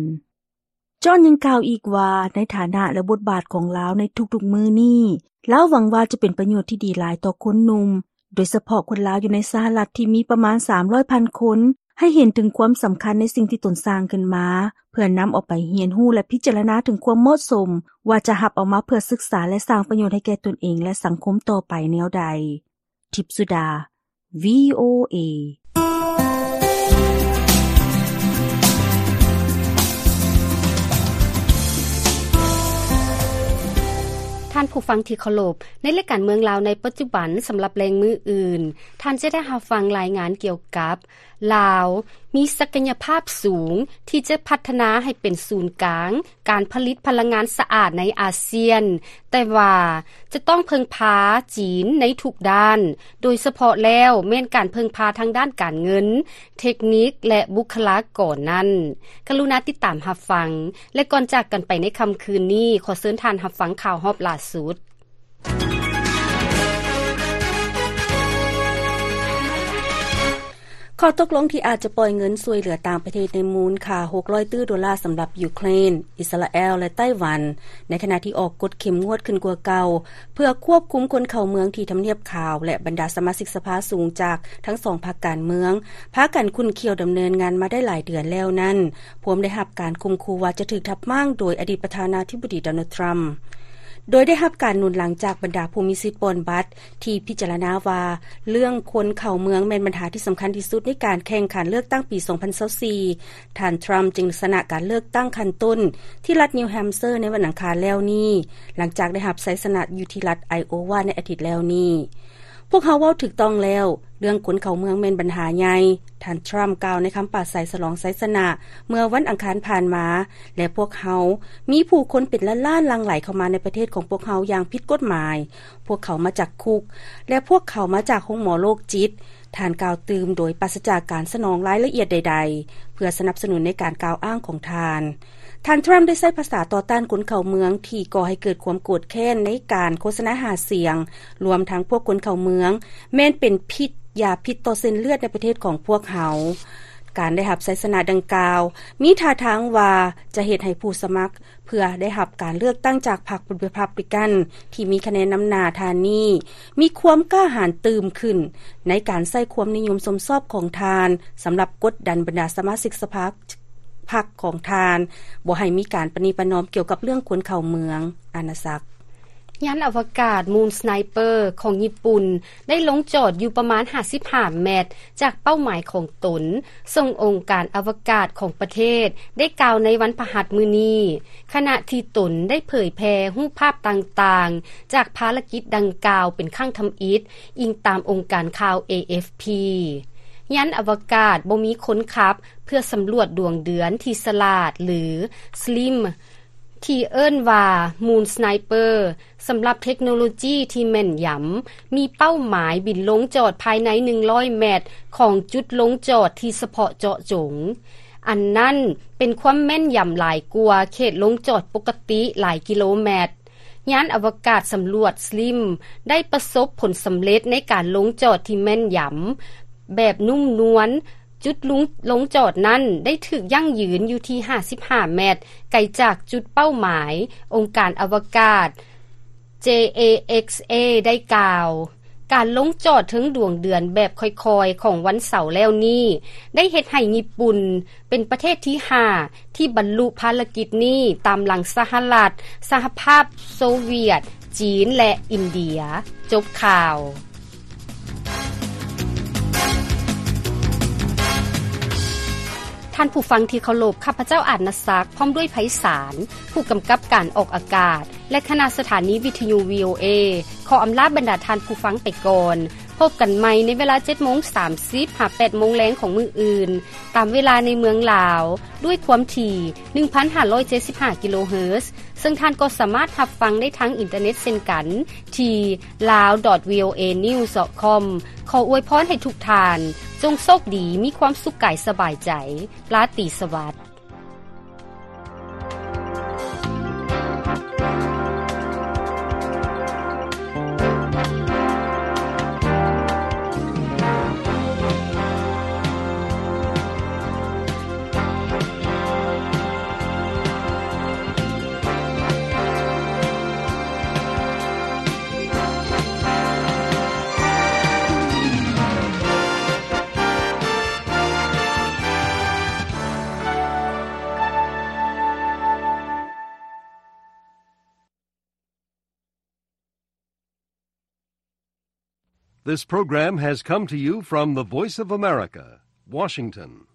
ຈອນຍັງກ່າວອີກວ່າ ໃນຖານະ ແລະ ບົດບາດຂອງລາວໃນທຸກໆມື້ນີ້, ລາວຫວັງວ່າຈະເປັນປະໂຫຍດທີ່ດີຫຼາຍຕໍ່ຄົນໜຸ່ມ, ໂດຍສະເພາະຄົນລາວຢູ່ໃນສະຫະລັດທີ່ມີປະມານສາມຮ້ອຍພັນຄົນ, ໃຫ້ເຫັນເຖິງຄວາມສຳຄັນໃນສິ່ງທີ່ຕົນສ້າງຂຶ້ນມາ, ເພື່ອນຳເອົາໄປຮຽນຮູ້ ແລະ ພິຈາລະນາເຖິງຄວາມເໝາະສົມ ວ່າຈະຮັບເອົາມາເພື່ອສຶກສາ ແລະ ສ້າງປະໂຫຍດໃຫ້ແກ່ຕົນເອງ ແລະ ສັງຄົມຕໍ່ໄປແນວໃດ. ທິບສຸດາ ວີໂອເອ. ທ່ານຜູ້ຟັງທີ່ເຄົາລົບ, ໃນລາຍການເມືອງລາວໃນປັດຈຸບັນ ສຳລັບແລງມື້ອື່ນ, ທ່ານຈະໄດ້ຮັບຟັງລາຍງານກ່ຽວກັບ ລາວມີສັກກະຍະພາບສູງທີ່ຈະພັດທະນາໃຫ້ເປັນສູນກາງການຜະລິດພະລັງງານສະອາດໃນອາຊຽນ, ແຕ່ວ່າຈະຕ້ອງເພິ່ງພາຈີນໃນທຸກດ້ານ, ໂດຍສະເພາະແລ້ວແມ່ນການເພິ່ງພາທາງດ້ານການເງິນ, ເທັກນິກ ແລະ ບຸກຄະລາກອນນັ້ນ. ກະລຸນາຕິດຕາມຮັບຟັງ, ແລະ ກ່ອນຈາກກັນໄປໃນຄ່ຳຄືນນີ້, ຂໍເຊີນທ່ານຮັບຟັງຂ່າວຮອບລ່າສຸດ. ຂໍ້ຕົກລົງທີ່ອາດຈະປ່ອຍເງິນຊ່ວຍເຫຼືອຕ່າງປະເທດໃນມູນຄ່າຫົກຮ້ອຍຕື້ໂດລາສຳລັບຢູເຄຣນ, ອິດສະຣາແອລ ແລະ ໄຕ້ຫວັນ, ໃນຂະນະທີ່ອອກກົດເຂັ້ມງວດຂຶ້ນກວ່າເກົ່າ ເພື່ອຄວບຄຸມຄົນເຂົ້າເມືອງທີ່ທຳນຽບຂາວ ແລະ ບັນດາສະມາຊິກສະພາສູງຈາກທັງສອງພັກການເມືອງ ພາກັນຂຸ້ນຂ້ຽວດຳເນີນງານມາໄດ້ຫຼາຍເດືອນແລ້ວນັ້ນ, ພວມໄດ້ຮັບການຂົ່ມຂູ່ວ່າຈະຖືກທັບມ້າງໂດຍອະດີດປະທານາທິບໍດີ ໂດນັລ ທຣຳ. ໂດຍໄດ້ຮັບການໜູນຫຼັງຈາກບັນດາຜູ້ມີສິດປ່ອນບັດ ທີ່ພິຈາລະນາວ່າເລື່ອງຄົນເຂົ້າເມືອງແມ່ນບັນຫາທີ່ສຳຄັນທີ່ສຸດໃນການແຂ່ງຂັນເລືອກຕັ້ງປີສອງພັນຊາວສີ່, ທ່ານ ທຣຳ ຈຶ່ງຊະນະການເລືອກຕັ້ງຂັ້ນຕົ້ນທີ່ລັດນິວແຮມເຊີໃນວັນອັງຄານແລ້ວນີ້, ຫຼັງຈາກໄດ້ຮັບໄຊຊະນະຢູ່ທີ່ລັດໄອໂອວາໃນອາທິດແລ້ວນີ້. ພວກເຮົາເວົ້າຖືກຕ້ອງແລ້ວ, ເລື່ອງຄົນເຂົ້າເມືອງແມ່ນບັນຫາໃຫຍ່, ທ່ານ ທຣຳ ກ່າວໃນຄຳປາໄສສະຫຼອງໄຊຊະນະເມື່ອວັນອັງຄານຜ່ານມາ, ແລະ ພວກເຮົາມີຜູ້ຄົນເປັນລ້ານໆຫຼັ່ງໄຫຼເຂົ້າມາໃນປະເທດຂອງພວກເຮົາຢ່າງຜິດກົດໝາຍ. ພວກເຂົາມາຈາກຄຸກ ແລະ ພວກເຂົາມາຈາກໂຮງໝໍໂລກຈິດ, ທ່ານກ່າວຕື່ມໂດຍປາສະຈາກການສະໜອງລາຍລະອຽດໃດໆ ເພື່ອສະໜັບສະໜູນໃນການກ່າວອ້າງຂອງທ່ານ. ທ່ານ ທຣຳ ໄດ້ໃຊ້ພາສາຕໍ່ຕ້ານຄົນເຂົ້າເມືອງທີ່ກໍ່ໃຫ້ເກີດຄວາມໂກດແຄ້ນໃນການໂຄສະນາຫາສຽງ, ລວມທັງພວກຄົນເຂົ້າເມືອງ ແມ່ນເປັນພິດ, ຢາພິດຕໍ່ເສັ້ນເລືອດໃນປະເທດຂອງພວກເຮົາ. ການໄດ້ຮັບໄຊຊະນະດັ່ງກ່າວ ມີທ່າທາງວ່າຈະເຮັດໃຫ້ຜູ້ສະໝັກ ເພື່ອໄດ້ຮັບການເລືອກຕັ້ງຈາກພັກ Republican ທີ່ມີຄະແນນນຳໜ້າທ່ານນີ້ ມີຄວາມກ້າຫານຕື່ມຂຶ້ນ ໃນການໃຊ້ຄວາມນິຍົມຊົມຊອບຂອງທ່ານ ສຳລັບກົດດັນບັນດາສະມາຊິກສະພາພັກຂອງທ່ານ ບໍ່ໃຫ້ມີການປະນີປະນອມກ່ຽວກັບເລື່ອງຄົນເຂົ້າເມືອງ. ອານາສັກ. ຍານອະວະກາດ Moon Sniper ຂອງຍີ່ປຸ່ນ ໄດ້ລົງຈອດຢູ່ປະມານຫ້າສິບຫ້າແມັດຈາກເປົ້າໝາຍຂອງຕົນ, ເຊິ່ງອົງການອະວະກາດຂອງປະເທດໄດ້ກ່າວໃນວັນພະຫັດມື້ນີ້, ຂະນະທີ່ຕົນໄດ້ເຜີຍແຜ່ຮູບພາບຕ່າງໆຈາກພາລະກິດດັ່ງກ່າວເປັນຄັ້ງທຳອິດ, ອີງຕາມອົງການຂ່າວ ເອເອັຟພີ. ຍານອະວະກາດບໍ່ມີຄົນຂັບ ເພື່ອສຳຫຼວດດວງເດືອນທີ່ສະຫຼາດ ຫຼື Slim ທີ່ເອີ້ນວ່າ Moon Sniper ສຳລັບເທັກໂນໂລຈີທີ່ແມ່ນຢຳ, ມີເປົ້າໝາຍບິນລົງຈອດພາຍໃນໜຶ່ງຮ້ອຍແມັດຂອງຈຸດລົງຈອດທີ່ສະເພາະເຈາະຈົງ. ອັນນັ້ນເປັນຄວາມແມ່ນຢຳຫຼາຍກວ່າເຂດລົງຈອດປົກກະຕິຫຼາຍກິໂລແມັດ. ຍານອະວະກາດສຳຫຼວດ Slim ໄດ້ປະສົບຜົນສຳເລັດໃນການລົງຈອດທີ່ແມ່ນຢຳ ແບບນຸ້ມນວນ, ຈຸດລົງ ລົງຈອດນັ້ນໄດ້ຖືກຢັ້ງຢືນຢູ່ທີ່ຫ້າສິບຫ້າແມັດ ໄກຈາກຈຸດເປົ້າໝາຍ. ອົງການອະວະກາດ ເຈ ເອ ເອັກສ ເອ ໄດ້ກ່າວ, ການລົງຈອດເທິງດວງເດືອນແບບຄ່ອຍໆຂອງວັນເສົາແລ້ວນີ້ ໄດ້ເຮັດໃຫ້ຍີ່ປຸ່ນເປັນປະເທດທີຫ້າ ທີ່ບັນລຸພາລະກິດນີ້ ຕາມຫຼັງສະຫະລັດ, ສະຫະພາບໂຊວຽດ, ຈີນ ແລະ ອິນເດຍ. ຈົບຂ່າວ. ທ່ານຜູ້ຟັງທີ່ເຄົາລົບ, ຂ້າພະເຈົ້າ ອາດນະສັກ ພ້ອມດ້ວຍ ໄພສານ ຜູ້ກຳກັບການອອກອາກາດ ແລະ ຄະນະສະຖານີວິທະຍຸ ວີໂອເອ ຂໍອຳລາບັນດາທ່ານຜູ້ຟັງໄປກ່ອນ. ພົບກັນໃໝ່ໃນເວລາ ເຈັດໂມງສາມສິບ ຫາ ແປດໂມງແລງຂອງມື້ອື່ນ, ຕາມເວລາໃນເມືອງລາວ, ດ້ວຍຄວາມຖີ່ ໜຶ່ງພັນຫ້າຮ້ອຍເຈັດສິບຫ້າ ກິໂລເຮີດ, ເຊິ່ງທ່ານກໍສາມາດຮັບຟັງໄດ້ທາງອິນເຕີເນັດເຊັ່ນກັນ ທີ່ lawdotvoanews.com. ຂໍອວຍພອນໃຫ້ທຸກທ່ານ ຈົ່ງໂຊກດີ, ມີຄວາມສຸກກາຍສະບາຍໃຈ. ລາຕີສະຫວັດ. This program has come to you from the Voice of America, Washington.